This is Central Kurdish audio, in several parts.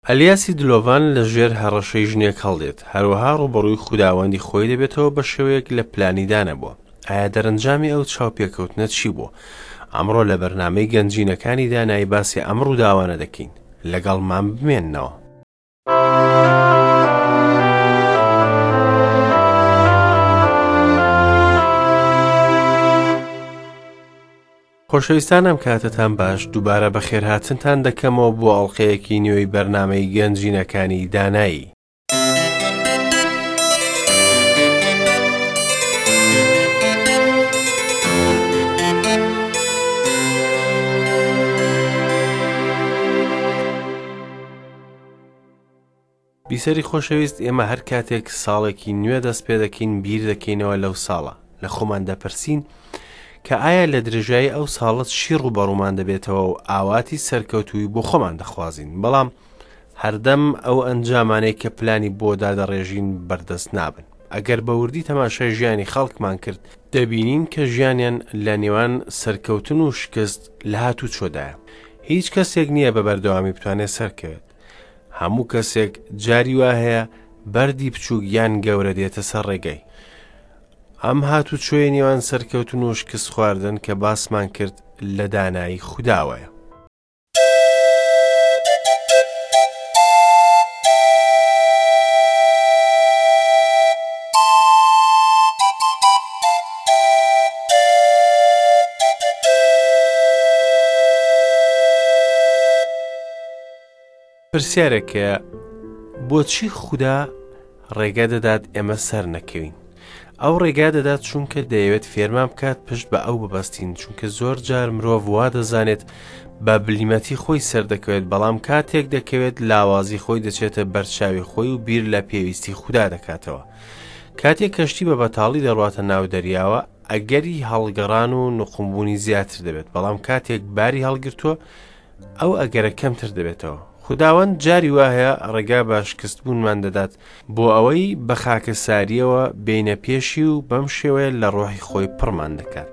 ئەلیاسی دلۆڤان لە ژێر هەڕەشەی ژنێک هەڵدێت، هەروەها ڕووبەڕووی خوداوەندی خۆی دەبێتەوە بە شێوەیەک لە پلانی دانەبووە. ئایا دەرەنجامی ئەو چاوپێکەوتنە چی بووە؟ ئەمڕۆ لە بەرنامەی گەنجینەکانی دانایی باسی ئەم ڕووداوانە دەکەین. لەگەڵمان بمێننەوە. خۆشەویستان ئەم کاتەتان باش دووبارە بەخێرهاتنتان دەکەمەوە بۆ ئەڵلقەیەکی نوێی بەرنامەی گەنجینەکانی دانایی. بیسەری خۆشەویست ئێمە هەر کاتێک ساڵێکی نوێ دەست پێ دەکەین بیر دەکەینەوە لەو ساڵە لە خۆمان دەپرسین کە ئایا لە درێژایی ئەو ساڵە چی ڕووبەڕوومان دەبێتەوە و ئاواتی سەرکەوتووی بۆ خۆمان دەخوازین بەڵام هەردەم ئەو ئەنجامانەی کە پلانی بۆ دادەڕێژین بەردەست نابن ئەگەر بە وردی تەماشای ژیانی خەڵکمان کرد دەبینین کە ژیانیان لە نێوان سەرکەوتن و شکست لە هاتوچۆدایە هیچ کەسێک نییە بە بەردەوامی بتوانێت سەرکەوێت هەموو کەسێک جاری وا هەیە بەردی بچووک یان گەورە دێتە سەر ڕێگەی. ئەم هاتوچۆی نێوان سەرکەوتن و شکست خواردن کە باسمان کرد لە دانایی خوداوەیە. پرسیارێک هەیە بۆچی خودا ڕێگە دەدات ئێمە سەر نەکەوین ئەو ڕێگا دەدات چونکە دەیەوێت فێرمان بکات پشت بە ئەو ببەستین چونکە زۆر جار مرۆڤ وا دەزانێت بە بلیمەتی خۆی سەردەکەوێت بەڵام کاتێک دەکەوێت لاوازی خۆی دەچێتە بەرچاوی خۆی و بیر لە پێویستی خودا دەکاتەوە کاتێک کەشتی بە بەتاڵی دەڕواتە ناو دەریاوە ئەگەری هەڵگەڕان و نقومبوونی زیاتر دەبێت بەڵام کاتێک باری هەڵگرتووە ئەو ئەگەرە کەمتر دەبێتەوە. خوداوەند جاری وا هەیە ڕێگا بە شکستبوونمان دەدات بۆ ئەوەی بە خاکەسارییەوە بێینە پێشی و بەم شێوەیە لە ڕۆحی خۆی پڕمان دەکات.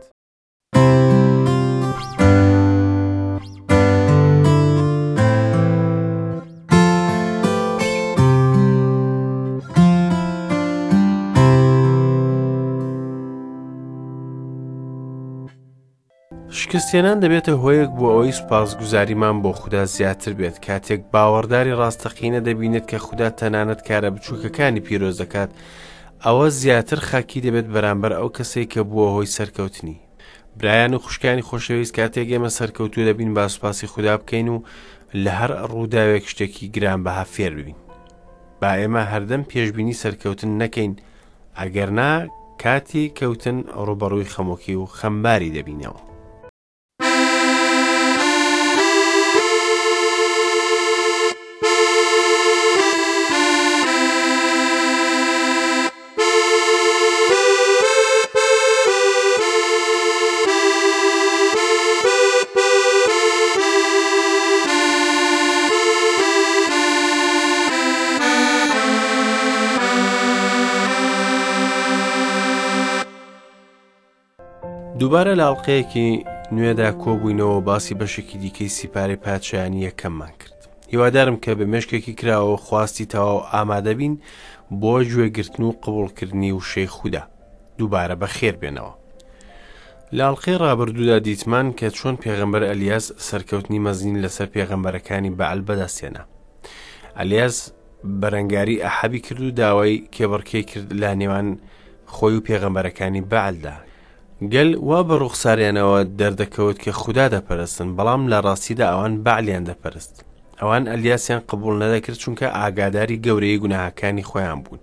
شکستهێنان دەبێتە هۆیەک بۆ ئەوەی سوپاسگوزاریمان بۆ خودا زیاتر بێت کاتێک باوەڕداری ڕاستەقینە دەبینێت کە خودا تەنانەت کارە بچووکەکانی پیرۆز دەکات ئەوە زیاتر خاکی دەبێت بەرامبەر ئەو کەسەی کە بووە هۆی سەرکەوتنی برایان و خوشکانی خۆشەویست کاتێک ئێمە سەرکەوتوو دەبین با سوپاسی خودا بکەین و لە هەر ڕووداوێک شتێکی گرانبەها فێر ببین با ئێمە هەردەم پێشبینی سەرکەوتن نەکەین ئەگەرنا کاتی کەوتن ڕووبەڕووی خەمۆکی و خەمباری دەبینەوە. دووبارە لە ئەڵلقەیەکی نوێدا کۆبووینەوە باسی بەشێکی دیکەی سیپارەی پادشایانی یەکەممان کرد هیوادارم کە بە مێشکێکی کراوە خواستی تەواو ئامادەبین بۆ گوێگرتن و قبوڵکردنی وشەی خودا دووبارە بەخێر بێنەوە. لە ئەڵقەی ڕابردوودا دیتمان کە چۆن پێغەمبەر ئەلیاس سەرکەوتنی مەزنی لەسەر پێغەمبەرەکانی بەعل بەدەستهێنا. ئەلیاس بەرەنگاری ئەحەبی کرد و داوای کێبڕکێی کرد لە نێوان خۆی و پێغەمبەرەکانی بەعلدا. گەل وا بە ڕوخساریانەوە دەردەکەوت کە خودا دەپەرستن، بەڵام لە ڕاستیدا ئەوان بەعلیان دەپەرست. ئەوان ئەلیاسیان قبوڵ نەدەکرد چونکە ئاگاداری گەورەی گوناهەکانی خۆیان بوون.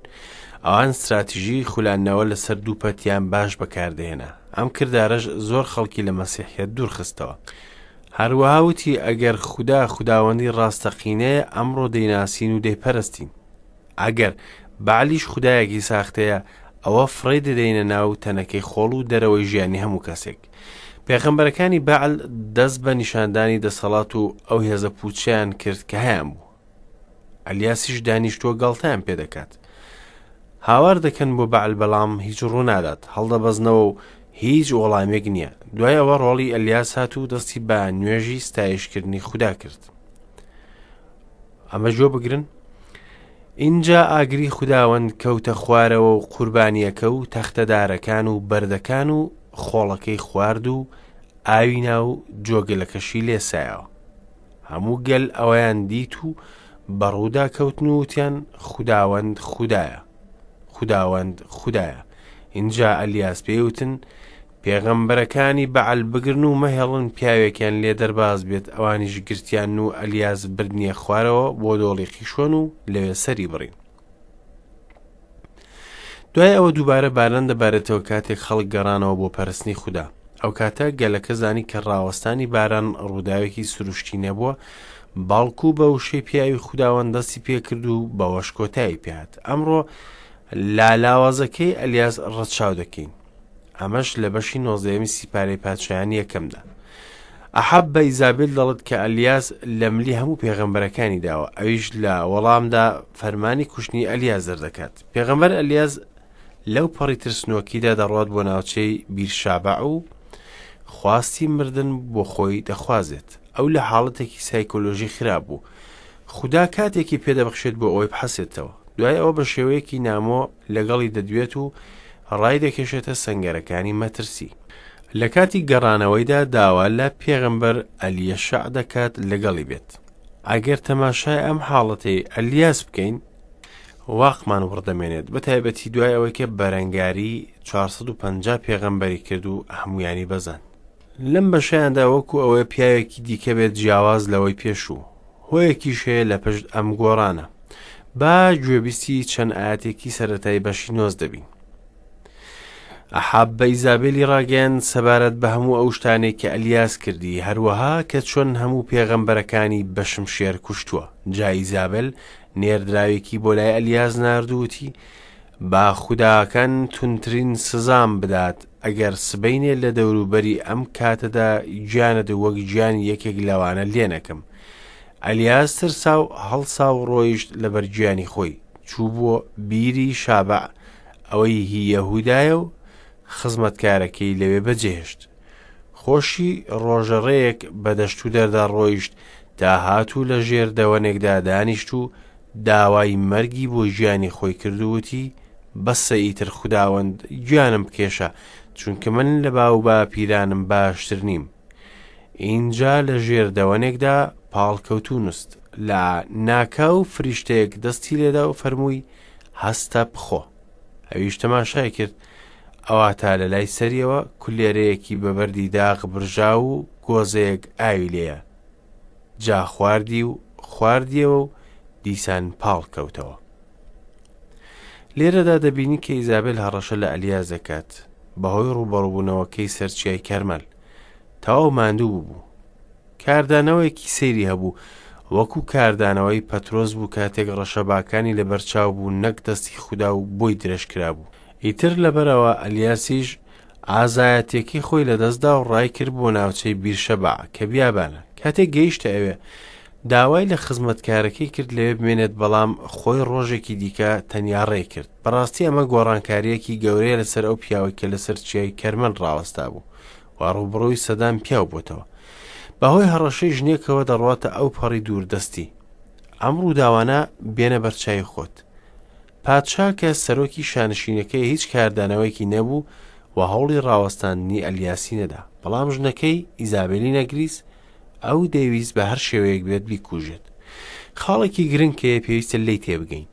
ئەوان ستراتیژی خولاندنەوە لەسەر دوو پەتیان باش بەکاردەهێنا. ئەم کردارەش زۆر خەڵکی لە مەسیحیەت دوورخستەوە. هەروەها وتی ئەگەر خودا خوداوەندی ڕاستەقینەیە ئەمڕۆ دەیناسین و دەیپەرستین. ئەگەر بەعلیش خودایەکی ساختەیە ئەوە فڕێی دەدەینە ناو تەنەکەی خۆڵ و دەرەوەی ژیانی هەموو کەسێک. پێغەمبەرەکانی بەعل دەست بە نیشاندانی دەسەڵات و ئەو هێزە پوچەیان کرد کە هەیان بوو. ئەلیاسیش دانیشتووە گاڵتەیان پێ دەکات. هاوار دەکەن بۆ بەعل بەڵام هیچ ڕوونادات، هەڵدەبەزنەوە و هیچ وەڵامێک نییە. دوای ئەوە ڕۆڵی ئەلیاس هات و دەستی بە نوێژی ستایشکردنی خودا کرد. ئەمە گوێ بگرن. ئینجا ئاگری خوداوەند کەوتە خوارەوە و قوربانییەکە و تەختەدارەکان و بەردەکان و خۆڵەکەی خوارد و ئاوی ناو جۆگەلەکەشی لێسایەوە. هەموو گەل ئەوەیان دیت و بەڕوودا کەوتن و وتیان خوداوەند خودایە، خوداوەند خودایە. ئینجا ئەلیاس پێی وتن پێغەمبەرەکانی بەعل بگرن و مەهێڵن پیاوێکیان لێ دەرباز بێت، ئەوانیش گرتیان و ئەلیاس بردنیە خوارەوە بۆ دۆڵی قیشۆن و لەوێ سەری بڕین. دوای ئەوە دووبارە باران دەبارێتەوە کاتێک خەڵک گەڕانەوە بۆ پەرستنی خودا. ئەو کاتە گەلەکە زانی کە ڕاوەستانی باران ڕووداوێکی سروشتی نەبووە، بەڵکو بە وشەی پیاوی خوداوەند دەستی پێکرد و بەوەش کۆتایی پێهات. ئەمڕۆ لا لاوازەکەی ئەلیاس ڕەچاو دەکەین. ئەمەش لە بەشی نۆزدەیەمی سیپارەی پادشایانی یەکەمدا. ئەحەب بە ئیزابێل دەڵێت کە ئەلیاس لە ملی هەموو پێغەمبەرەکانی داوە، ئەویش لە وەڵامدا فەرمانی کوشتنی ئەلیاس دەردەکات. پێغەمبەر ئەلیاس لەو پەڕی ترسنۆکیدا دەڕوات بۆ ناوچەی بیرشابع و خواستی مردن بۆ خۆی دەخوازێت. ئەو لە حاڵەتێکی سایکۆلۆژی خراپ بوو. خودا کاتێکی پێدەبەخشێت بۆ ئەوەی بحەسێتەوە. دوای ئەوە بە شێوەیەکی نامۆ لەگەڵی دەدوێت و ڕای دەکێشێتە سەنگەرەکانی مەترسی. لە کاتی گەڕانەوەیدا داوا لە پێغەمبەر ئەلیەشع دەکات لەگەڵی بێت. ئەگەر تەماشای ئەم حاڵەتەی ئەلیاس بکەین، واقمان وڕدەمێنێت، بە تایبەتی دوای ئەوەی کە بەرەنگاری 450 پێغەمبەری کرد و هەمویانی بەزاند. لەم بەشەیاندا وەکو ئەوەیە پیاوێکی دیکە بێت جیاواز لەوەی پێشوو. هۆیەکیش هەیە لە پشت ئەم گۆڕانە. با گوێبیستی چەند ئایەتێکی سەرەتای بەشی 19 بین. ئەحاب بە ئیزابێلی ڕاگەیاند سەبارەت بە هەموو ئەو شتانەی کە ئەلیاس کردی، هەروەها کە چۆن هەموو پێغەمبەرەکانی بە شمشێر کوشتووە. جا ئیزابێل نێردراوێکی بۆ لای ئەلیاس نارد و وتی، با خوداکان توندترین سزام بدات ئەگەر سبەینێ لە دەوروبەری ئەم کاتەدا گیانت وەک گیانی یەکێک لەوانە لێ نەکەم. ئەلیاس ترسا و هەڵسا و ڕۆیشت لەبەر گیانی خۆی، چوو بۆ بیری شابەع ئەوەی هی یەهودایە و خزمەتکارەکەی لەوێ بەجێهێشت. خۆشی ڕۆژەڕێیەک بە دەشتودەردا ڕۆیشت تا هات و لە ژێر دەوەنێکدا دانیشت و داوای مەرگی بۆ گیانی خۆی کرد و وتی، بەسە ئیتر خوداوەند گیانم بکێشە، چونکە من لە باوباپیرانم باشتر نیم. ئینجا لە ژێر دەوەنێکدا پاڵکەوت و نوست. لە ناکاو فریشتەیەک دەستی لێدا و فەرمووی، هەستە بخۆ. ئەویش تەماشای کرد، ئەواتا لە لای سەریەوە کولێرەیەکی بە بەردی داغ برژاو و گۆزەیەک ئاوی لێیە. جا خواردی و خواردیەوە و دیسان پاڵ کەوتەوە. لێرەدا دەبینی کە ئیزابێل هەڕەشە لە ئەلیاس دەکات بەهۆی ڕووبەڕووبوونەوەکەی سەر چیای کەرمەل. تەواو ماندوو بوو. کاردانەوەیەکی سەیری هەبوو، وەکو کاردانەوەی پەترۆس بوو کاتێک ڕەشەباکانی لەبەرچاو بوو نەک دەستی خودا و بۆی درێژکرابوو. ئیتر لەبەرئەوە ئەلیاسیش ئازایەتیەکەی خۆی لەدەستدا و ڕایکرد بۆ ناوچەی بیرشەبع کە بیابانە. کاتێک گەیشتە ئەوێ، داوای لە خزمەتکارەکەی کرد لەوێ بمێنێت بەڵام خۆی ڕۆژێکی دیکە تەنیا ڕێی کرد. بەڕاستی ئەمە گۆڕانکارییەکی گەورەیە لەسەر ئەو پیاوەی کە لەسەر چیای کەرمەل ڕاوەستابوو و ڕووبەڕووی سەدان پیاو بۆتەوە. بەهۆی هەڕەشەی ژنێکەوە دەڕواتە ئەو پەڕی دووردەستی. ئەم ڕووداوانە بێنە بەرچاوی خۆت. پادشا کە سەرۆکی شانشینەکەی هیچ کاردانەوەیەکی نەبوو و هەوڵی ڕاوەستاندنی ئەلیاسی نەدا. بەڵام ژنەکەی، ئیزابێلی نەگریس، ئەو دەیویست بە هەر شێوەیەک بێت بیکوژێت. خاڵێکی گرنگ کە پێویستە لێی تێبگەین.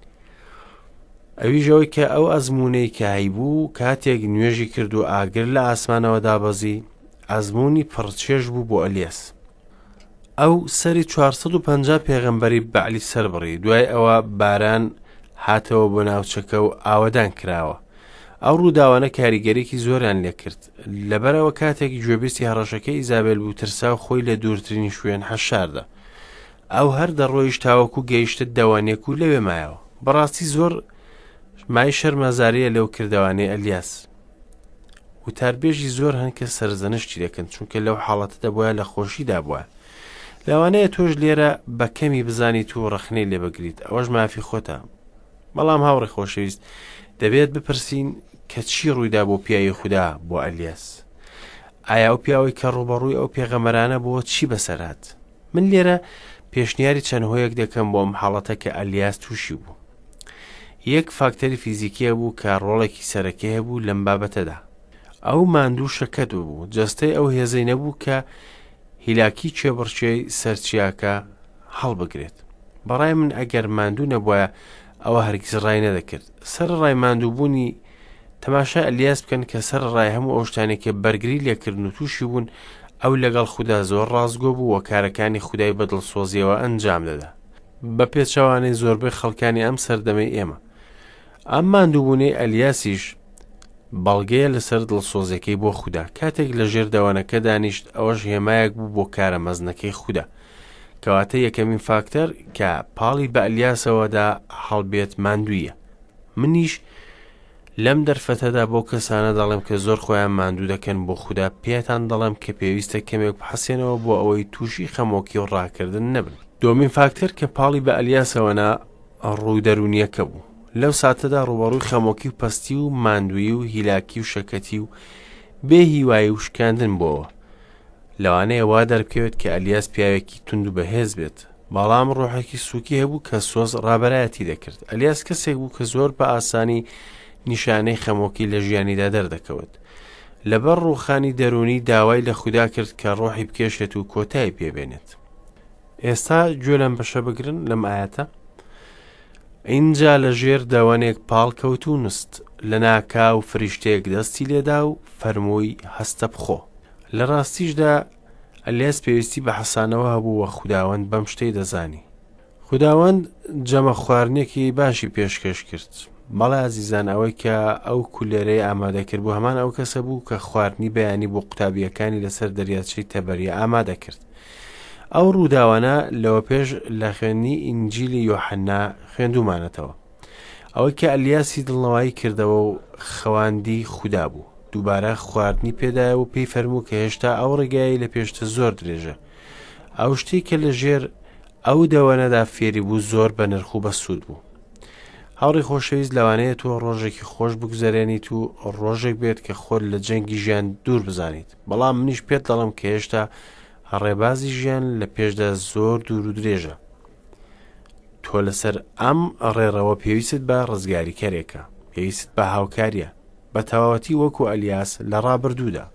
ئەویش ئەوەی کە ئەو ئەزموونەی کە هەیبوو کاتێک نوێژی کرد و ئاگر لە ئاسمانەوە دابەزی، ئەزموونی پڕچێژ بوو بۆ ئەلیاس. ئەو سەری 450 پێغەمبەری بەعلی سەربڕی، دوای ئەوە باران هاتەوە بۆ ناوچەکە و ئاوەدان کراوە. ئەو ڕووداوانە کاریگەریی زۆریان لێکرد. لەبەرئەوە کاتێک گوێبیستی هەڕەشەکەی ئیزابێل بوو ترسا و خۆی لە دوورترین شوێن حەشاردا. ئەو هەر دەڕۆیشت تاوەکو گەیشتە دەوانێک و لەوێ مایەوە. بەڕاستی زۆر مای شەرمەزارییە لەو کردەوانەی ئەلیاس. وتاربێژی زۆر هەن کە سەرزەنشتی دەکەن چونکە لەو حاڵەتە دەبوایە لە خۆشیدا بوایە. لەوانەیە تۆش لێرە بە کەمی بزانیت و ڕەخنەی لێ بگریت، ئەوەش مافی خۆتە. بەڵام هاوڕێ خۆشەویست، دەبێت بپرسین کە چی ڕوویدا بۆ پیاوی خودا بۆ ئەلیاس؟ ئایا ئەو پیاوەی کە ڕووبەڕووی ئەو پێغەمبەرانە بۆ چی بەسەر هات؟ من لێرە پێشنیاری چەند هۆیەک دەکەم بۆ ئەم حاڵەتە کە ئەلیاس تووشی بوو. یەک فاکتەری فیزیکی هەبوو کە ڕۆڵێکی سەرەکی هەبوو لەم بابەتەدا. ئەو ماندوو شەکەت ببوو، جەستەی ئەو هێزەی نەبوو کە هیلاکی کێبڕکێی سەر چیاکە هەڵبگرێت. بەڕای من ئەگەر ماندوو نەبوایە ئەوە هەرگیز ڕای نەدەکرد. سەرەڕای ماندووبوونی تەماشای ئەلیاس بکەن کە سەرەڕای هەموو ئەو شتانەی کە بەرگری لێکردن و تووشی بوون، ئەو لەگەڵ خودا زۆر ڕاستگۆ بوو و کارەکانی خودای بە دڵسۆزیەوە ئەنجام دەدا. بە پێچەوانەی زۆربەی خەڵکانی ئەم سەردەمەی ئێمە. ئەم ماندووبوونەی ئەلیاسیش بەڵگەیە لەسەر دڵسۆزیەکەی بۆ خودا. کاتێک لە ژێر دەوەنەکە دانیشت، ئەوەش هێمایەک بوو بۆ کارە مەزنەکەی خودا. کەواتە یەکەمین فاکتەر کە پاڵی بە ئەلیاسەوە دا هەڵبێت ماندوویە. منیش لەم دەرفەتەدا بەو کەسانە دەڵێم کە زۆر خۆیان ماندوو دەکەن بۆ خودا پێتان دەڵێم کە پێویستە کەمێک بحەسێنەوە بۆ ئەوەی تووشی خەمۆکی و ڕاکردن نەبن. دووەمین فاکتەر کە پاڵی بە ئەلیاسەوە نا ڕوو دەروونییەکە بوو. لەو ساتەدا ڕووبەڕووی خەمۆکی و پەستی و ماندوویی و هیلاکی و شەکەتی و بێ هیوایی و شکاندن بۆوە. لەوانەیە وا دەربکەوێت کە ئەلیاس پیاوێکی توند و بەهێز بێت، بەڵام ڕۆحێکی سووکی هەبوو کە سۆز ڕابەرایەتی دەکرد. ئەلیاس کەسێک بوو کە زۆر بە ئاسانی نیشانەی خەمۆکی لە ژیانیدا دەردەکەوت. لەبەر ڕووخانی دەروونی داوای لە خودا کرد کە ڕۆحی بکێشێت و کۆتایی پێبێنێت. ئێستا گوێ لەم بەشە بگرن لەم ئاەتە. ئینجا لە ژێر دەوەنێک پاڵ کەوت و نوست، لەناکاو فریشتەیەک دەستی لێدا و فەرمووی هەستە بخۆ. لە ڕاستیشدا ئەلیاس پێویستی بە حەسانەوە هەبوو و خوداوەند بەم شتەی دەزانی. خوداوەند جەمە خواردنێکی باشی پێشکەش کرد. بەڵێ ئازیزان ئەوەی کە ئەو کولێرەی ئامادە کرد بوو هەمان ئەو کەسە بوو کە خواردنی بەیانی بۆ قوتابییەکانی لەسەر دەریاچەی تەبەریە ئامادە کرد. ئەو ڕووداوانە لەوە پێش لە خوێندنی ئینجیلی یۆحەنا خوێندوومانەتەوە. ئەوەی کە ئەلیاسی دڵنەوایی کردەوە و خەواندی خودا بوو. دووبارە خواردنی پێدایەوە و پێی فەرموو کە هێشتا ئەو ڕێگایەی لە پێشتە زۆر درێژە. ئەو شتەی کە لە ژێر ئەو دەوەنەدا فێری بوو زۆر بە نرخ و بەسوود بوو. هاوڕێی خۆشەویست لەوانەیە تۆ ڕۆژێکی خۆش بگوزەرێنیت و ڕۆژێک بێت کە خۆت لە جەنگی ژیان دوور بزانیت بەڵام منیش پێت دەڵم کە هێشتا ڕێبازی ژیان لە پێشدا زۆر دوور و درێژە تۆ لەسەر ئەم ڕێڕەوە پێویستت بە ڕزگاریکەرێکە پێویست بە هاوکاریە بە تەواوەتی وەکو ئەلیاس لە ڕابردوودا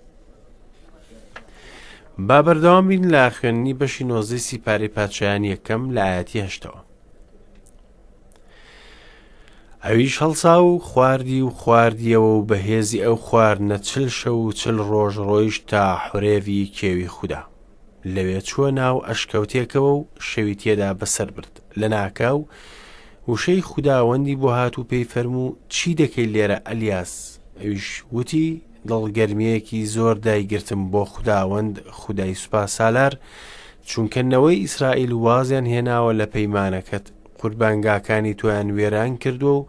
با بەردەوام بین لە خوێندنی بەشی نۆزدەی سیپارەی پادشایانی یەکەم لە ئاەتی هەشتەوە ئەویش هەڵسا و خواردی و خواردیەوە و بەهێزی ئەو خواردنە چل شەو و چل ڕۆژ ڕۆیشت تا حورێڤی کێوی خودا. لەوێ چووە ناو ئەشکەوتێکەوە و شەوی تێدا بەسەر برد. لەناکاو وشەی خوداوەندی بۆ هات و پێی فەرموو، چی دەکەی لێرە ئەلیاس؟ ئەویش وتی، دڵگەرمییەکی زۆر دایگرتم بۆ خوداوەند خودای سوپاسالار، چونکە نەوەی ئیسرائیل وازیان هێناوە لە پەیمانەکەت، قوربانگاکانی تۆیان وێران کردووە و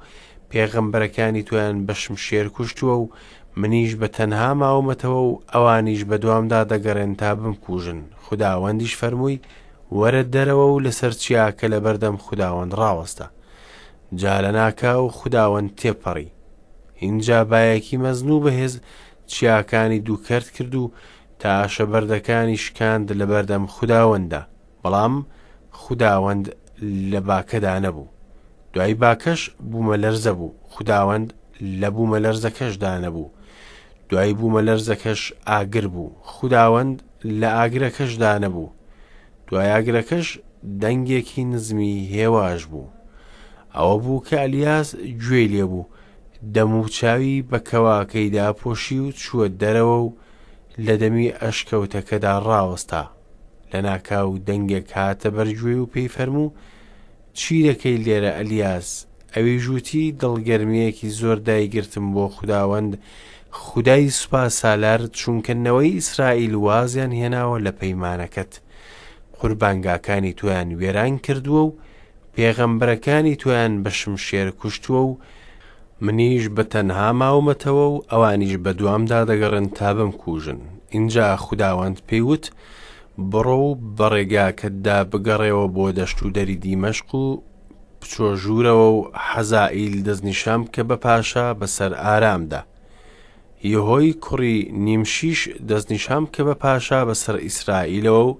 پێغەمبەرەکانی تۆیان بە شمشێر کوشتووە و منیش بە تەنها ماومەتەوە و ئەوانیش بە دوامدا دەگەڕێن تا بمکوژن. خوداوەندیش فەرمووی، وەرە دەرەوە و لەسەر چیاکە لەبەردەم خوداوەند ڕاوەستە. جا لەناکاو خوداوەند تێپەڕی. ئینجا بایەکی مەزن و بەهێز چیاکانی دووکەرت کرد و تاشە بەردەکانی شکاند لەبەردەم خوداوەنددا. بەڵام خوداوەند لە باکەدا نەبوو. دوای باکەش بوومەلەرزە بوو، خوداوەند لە بوومەلەرزەکەشدا نەبوو. دوای بوومەلەرزەکەش ئاگر بوو، خوداوەند لە ئاگرەکەشدا نەبوو. دوای ئاگرەکەش دەنگێکی نزمی هێواش بوو. ئەوە بوو کە ئەلیاس گوێی لێبوو، دەموچاوی بە کەواکەی داپۆشی و چووە دەرەوە و لە دەمی ئەشکەوتەکەدا ڕاوەستا. لەناکاو دەنگێک هاتە بەرگوێی و پێی فەرموو، چی دەکەی لێرە ئەلیاس؟ ئەویش وتی، دڵگەرمییەکی زۆر دایگرتم بۆ خوداوەند، خودای سوپاسالار، چونکە نەوەی ئیسرائیل وازیان هێناوە لە پەیمانەکەت، قوربانگاکانی تۆیان وێران کردووە و پێغەمبەرەکانی تۆیان بە شمشێر کوشتووە و منیش بە تەنها ماومەتەوە و ئەوانیش بە دوامدا دەگەڕێن تا بمکوژن. ئینجا خوداوەند پێی وت، بڕۆ و بە ڕێگاکەتدا بگەڕێوە بۆ دەشتودەری دیمەشق و بچۆ ژوورەوە و حەزائیل دەستنیشان بکە بە پاشا بەسەر ئارامدا. یەهۆی کوڕی نیمشیش دەستنیشان بکە بە پاشا بەسەر ئیسرائیلەوە و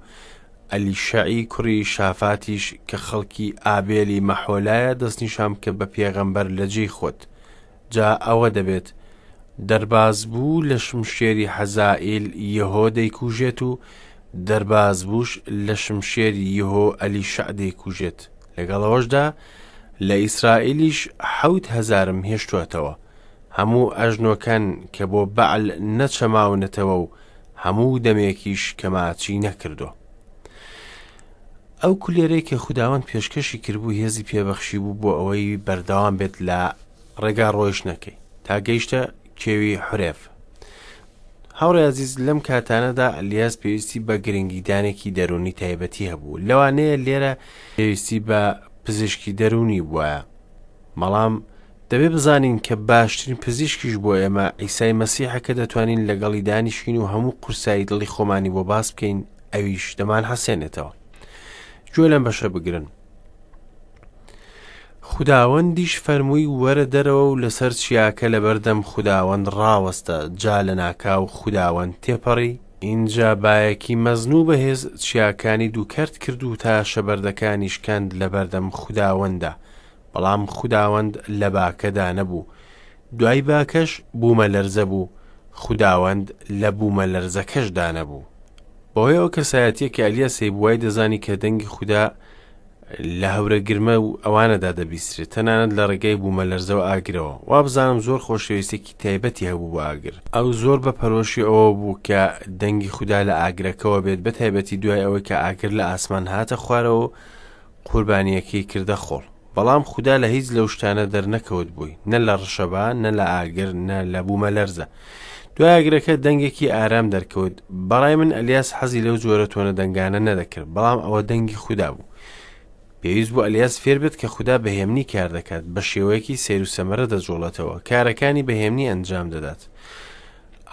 ئەلیشەعی کوڕی شافاتیش کە خەڵکی ئابێلی مەحۆلایە دەستنیشان بکە بە پێغەمبەر لە جێی خۆت. جا ئەوە دەبێت، دەربازبوو لە شمشێری حەزائیل یەهۆ دەیکوژێت و دەربازبووش لە شمشێری یەهۆ ئەلیشەع دەیکوژێت. لەگەڵ ئەوەشدا لە ئیسرائیلیش 7000م هێشتووەتەوە، هەموو ئەژنۆکان کە بۆ بەعل نەچەماونەتەوە و هەموو دەمێکیش کە ماچی نەکردووە. ئەو کولێرەی کە خوداوەند پێشکەشی کردبوو هێزی پێبەخشی بوو بۆ ئەوەی بەردەوام بێت لە ڕێگا ڕۆیشتنەکەی تا گەیشتە کێوی حورێڤ. هاوڕێ ئازیز لەم کاتانەدا ئەلیاس پێویستی بە گرنگیدانێکی دەروونی تایبەتی هەبوو لەوانەیە لێرە پێویستی بە پزیشکی دەروونی بوایە بەڵام دەبێ بزانین کە باشترین پزیشکیش بۆ ئێمە عیسای مەسیحە کە دەتوانین لەگەڵی دانیشین و هەموو قورسایی دڵی خۆمانی بۆ باس بکەین ئەویش دەمان حەسێنێتەوە گوێ لەم بەشە بگرن خوداوەندیش فەرمووی وەرە دەرەوە و لەسەر چیاکە لەبەردەم خوداوەند ڕاوەستە جا لەناکاو خوداوەند تێپەڕی ئینجا بایەکی مەزن و بەهێز چیاکانی دووکەرت کرد و تاشە بەردەکانی شکاند لەبەردەم خوداوەندا بەڵام خوداوەند لە باکەدا نەبوو دوای باکەش بوومەلەرزە بوو خوداوەند لە بوومەلەرزەکەشدا نەبوو. بەهۆی ئەو کەسایەتیە کە ئەلیاس هەیبوو وای دەزانی کە دەنگی خودا لە هەورە گرمە و ئەوانەدا دەبیسترێت تەنانەت لە ڕێگای بوومەلەرزەوە ئاگرەوە وابزانم زۆر خۆشەویستێکی تایبەتی هەبوو بۆ ئاگر ئەو زۆر بە پەرۆشی ئەوە بوو کە دەنگی خودا لە ئاگرەکەوە بێت بە تایبەتی دوای ئەوەی کە ئاگر لە ئاسمان هاتە خوارەوە و قوربانیەکەی کردە خۆڵ بەڵام خودا لە هیچ لەو شتانە دەرنەکەوت بووی نە لە ڕشەبا نە لە ئاگر نە لە بوومەلەرزە دوای ئاگرەکە دەنگێکی ئارام دەرکەوت بەڕای من ئەلیاس حەزی لەو جۆرە تۆنە دەنگانە نەدەکرد بەڵام ئەوە دەنگی خودا بوو پێویست بوو ئەلیاس فێر بێت کە خودا بە هێمنی کار دەکات بە شێوەیەکی سەیر و سەمەرە دەجوڵێتەوە کارەکانی بە هێمنی ئەنجام دەدات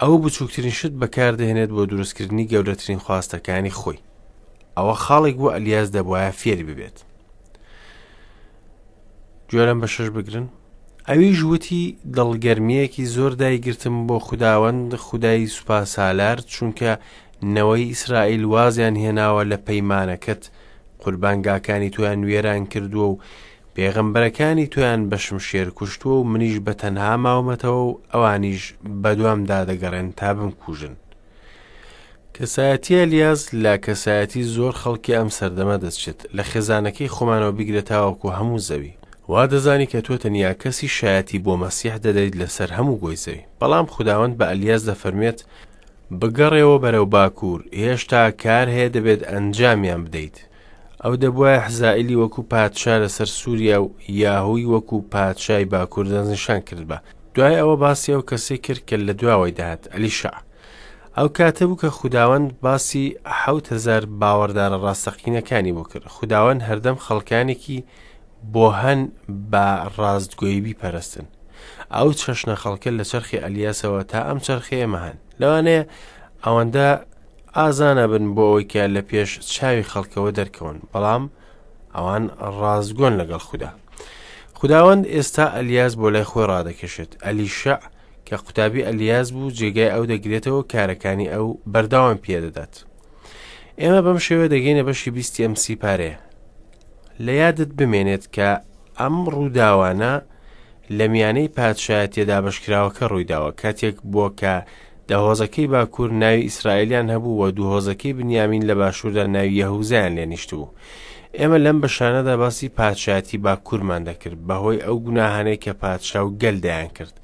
ئەو بچووکترین شت بەکاردەهێنێت بۆ دروستکردنی گەورەترین خواستەکانی خۆی ئەوە خاڵێک بوو ئەلیاس دەبواە فێری ببێت گوێ لەم بەشەش بگرن ئەویش وتی دڵگەرمییەکی زۆر دایگرتم بۆ خوداوەند خودای سوپاسالار چونکە نەوەی ئیسرائیل وازیان هێناوە لە پەیمانەکەت قوربانگاکانی تۆیان وێران کردووە و پێغەمبەرەکانی تۆیان بە شمشێر کوشتووە و منیش بە تەنها ماومەتەوە و ئەوانیش بەدوامدا دەگەڕێن تا بمکوژن. کەسایەتی ئەلیاس لە کەسایەتی زۆر خەڵکی ئەم سەردەمە دەچێت، لە خێزانەکەی خۆمانەوە بیگرە تاوەکو هەموو زەوی. وا دەزانی کە تۆ تەنیا کەسی شایەتی بۆ مەسیح دەدەیت لەسەر هەموو گۆی زەوی. بەڵام خوداوەند بە ئەلیاس دەفەرموێت، بگەڕێوە بەرەو باکوور، هێشتا کار هەیە دەبێت ئەنجامیان بدەیت. ئەو دەبوایە حزائیلی وەکو پادشا لەسەر سووریا و یاهوی وەکو پادشای باکوور دەستنیشان کردبا. دوای ئەوە باسی ئەو کەسەی کرد کە لە دواوەی دەهات، ئەلیشەع. ئەو کاتە بوو کە خوداوەند باسی 7000 باوەڕدارە ڕاستەقینەکانی بۆ کرد. خوداوەند هەردەم خەڵکانێکی بۆ هەن بە ڕاستگۆیی بیپەرستن. ئەو چەشنە خەڵکە لە چەرخی ئەلیاسەوە تا ئەم چەرخی ئێمە هەن. لەوانەیە ئەوەندە ئازا نەبن بۆ ئەوەی کە لە پێش چاوی خەڵکەوە دەرکەون، بەڵام ئەوان ڕاستگۆن لەگەڵ خودا. خوداوەند ئێستا ئەلیاس بۆ لای خۆی ڕادەکێشێت. ئەلیشەع کە قوتابی ئەلیاس بوو جێگای ئەو دەگرێتەوە کارەکانی ئەو بەردەوام پێدەدات. ئێمە بەم شێوە دەگەینە بەشی بیستی ئەم سیپارەیە. لە یادت بمێنێت کە ئەم ڕووداوانە لە میانەی پادشایەتیە دابەشکراوەکە ڕوویداوە کاتێک بووە کە دە هۆزەکەی باکوور ناوی ئیسرائیلیان هەبوو و دوو هۆزەکەی بنیامین لە باشووردا ناوی یەهوزایان لێ نیشتبوو. ئێمە لەم بەشانەدا باسی پادشایەتی باکوورمان دەکرد بەهۆی ئەو گوناهانەی کە پادشا و گەل دەیانکرد.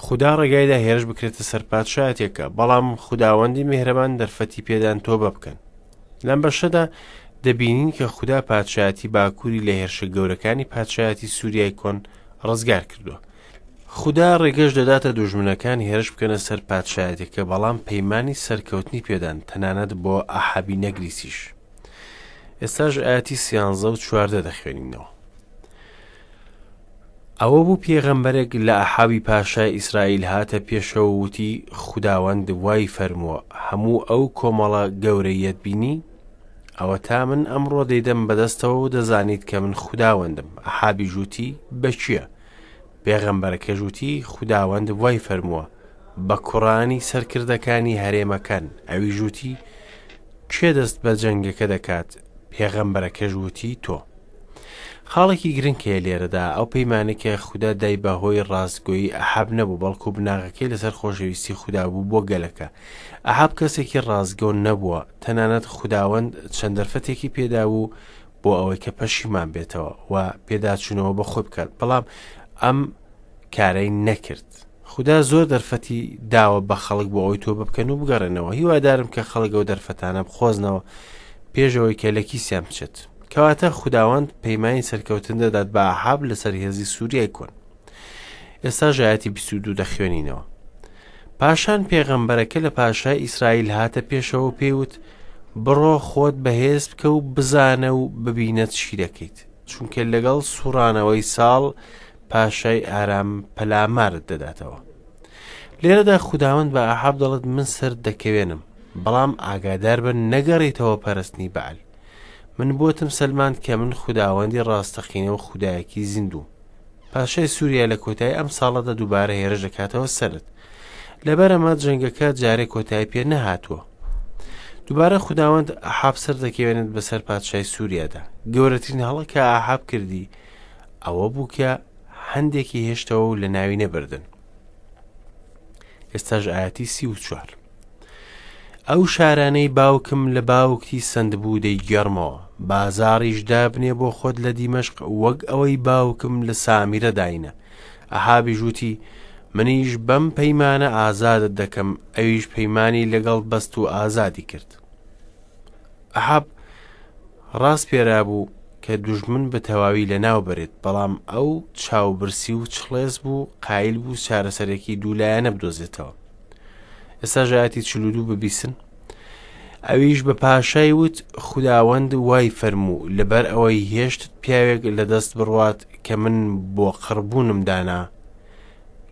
خودا ڕێگایدا هێرش بکرێتە سەر پادشایەتێکە، بەڵام خوداوەندی میهرەبان دەرفەتی پێدان تۆبە بکەن. لەم بەشەدا دەبینین کە خودا پادشایەتی باکووری لە هێرشە گەورەکانی پادشایەتی سووریای کۆن ڕزگار کردووە. خودا ڕێگەش دەداتە دوژمنەکان هێرش بکەنە سەر پادشایەتەکە بەڵام پەیمانی سەرکەوتنی پێدان تەنانەت بۆ ئەحابی نەگریسیش. ئێستاش ئاەتی سیانزە و چواردە دەخوێنینەوە. ئەوە بوو پێغەمبەرێک لە ئەحابی پاشای ئیسرائیل هاتە پێشەوە و وتی، خوداوەند وای فەرمووە، هەموو ئەو کۆمەڵە گەورەیەت بینی؟ ئەوەتا من ئەمڕۆ دەیدەم بەدەستەوە و دەزانیت کە من خوداوەندم. ئەحابیش وتی، بە کێ؟ پێغەمبەرەکەش وتی، خوداوەند وای فەرمووە، بە کوڕانی سەرکردەکانی هەرێمەکان. ئەویش وتی، کێ دەست بە جەنگەکە دەکات؟ پێغەمبەرەکەش وتی تۆ. خاڵێکی گرنگ هەیە لێرەدا، ئەو پەیمانەی کە خودا دای بە هۆی ڕاستگۆیی ئەحاب نەبوو، بەڵکو بناغەکەی لەسەر خۆشەویستی خودا بوو بۆ گەلەکە. ئەحاب کەسێکی ڕاستگۆ نەبووە، تەنانەت خوداوەند چەند دەرفەتێکی پێدابوو بۆ ئەوەی کە پەشیمان بێتەوە و پێداچوونەوە بە خۆی بکات، بەڵام ئەم کارەی نەکرد. خودا زۆر دەرفەتی داوە بە خەڵک بۆ ئەوەی تۆبە بکەن و بگەڕێنەوە. هیوادارم کە خەڵک ئەو دەرفەتانە بخۆزنەوە پێش ئەوەی کە لە کیسیان بچێت. کەواتە خوداوەند پەیمانی سەرکەوتن دەدات بە ئەحاب لەسەر هێزی سووریای کۆن. ئێستا ژایەتی 22 دەخوێنینەوە. پاشان پێغەمبەرەکە لە پاشای ئیسرائیل هاتە پێشەوە و پێی وت بڕۆ خۆت بەهێز بکە و بزانە و ببینە چی دەکەیت چونکە لەگەڵ سوڕانەوەی ساڵ پاشای ئارام پەلامارت دەداتەوە. لێرەدا خوداوەند بە ئەحاب دەڵێت من سەرت دەکەوێنم، بەڵام ئاگاداربە نەگەڕێیتەوە پەرستنی بەعل. من بۆتم سەلماند کە من خوداوەندی ڕاستەقینە و خودایەکی زیندووم. پاشای سووریا لە کۆتایی ئەم ساڵەدا دووبارە هێرش دەکاتەوە سەرت. لەبەر ئەمە جەنگەکە جارێ کۆتایی پێ نەهاتووە. دووبارە خوداوەند ئەحاب سەردەکەوێنێت بەسەر پادشای سووریادا. گەورەترین هەڵە کە ئەحاب کردی ئەوە بوو کە هەندێکی هێشتەوە و لە ناوی نەبردن. ئێستاش ئاەتی 34. ئەو شارانەی باوکم لە باوکتی سندبوو دەیگێڕمەوە، بازاڕیش دابنێ بۆ خۆت لە دیمەشق وەک ئەوەی باوکم لە سامیرە داینە. ئەحابیش وتی، منیش بەم پەیمانە ئازادت دەکەم، ئەویش پەیمانی لەگەڵ بەست و ئازادی کرد. ئەحاب ڕاسپێرابوو کە دوژمن بە تەواوی لەناو بەرێت، بەڵام ئەو چاوبرسی و چڵێس بوو، قایل بوو چارەسەرێکی دوولایەنە بدۆزێتەوە. ئێستا ئایەتی 42 ببیسن. ئەویش بە پاشای وت خوداوەند وای فەرموو لەبەر ئەوەی هێشتت پیاوێک لە دەست بڕوات کە من بۆ قڕبوونم دانا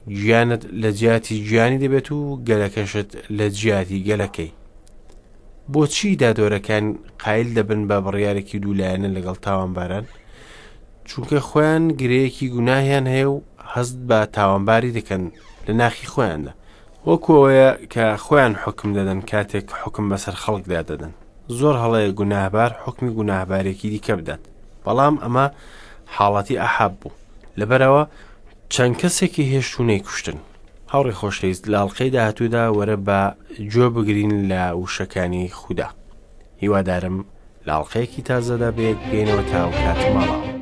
گیانت لە جیاتی گیانی دەبێت و گەلەکەشت لە جیاتی گەلەکەی. بۆچی دادوەرەکان قایل دەبن بە بڕیارێکی دوولایەنە لەگەڵ تاوانباران؟ چونکە خۆیان گرەیەکی گوناهیان هەیە و هەست بە تاوانباری دەکەن لە ناخی خۆیاندا وەکو ئەوەیە کە خۆیان حوکم دەدەن کاتێک حوکم بەسەر خەڵکدا دەدەن زۆر هەڵەیە گوناهبار حوکمی گوناهبارێکی دیکە بدات بەڵام ئەمە حاڵەتی ئەحاب بوو لەبەرەوە چەند کەسێکی هێشت و نەیکوشتن. هاوڕێ خۆشەویست لە ئەڵقەی داهاتوودا وەرە با گوێ بگرین لە وشەکانی خودا. هیوادارم لە ئەڵقەیەکی تازەدا بەیەک بگەینەوە تا ئەو کاتە ماڵاوە.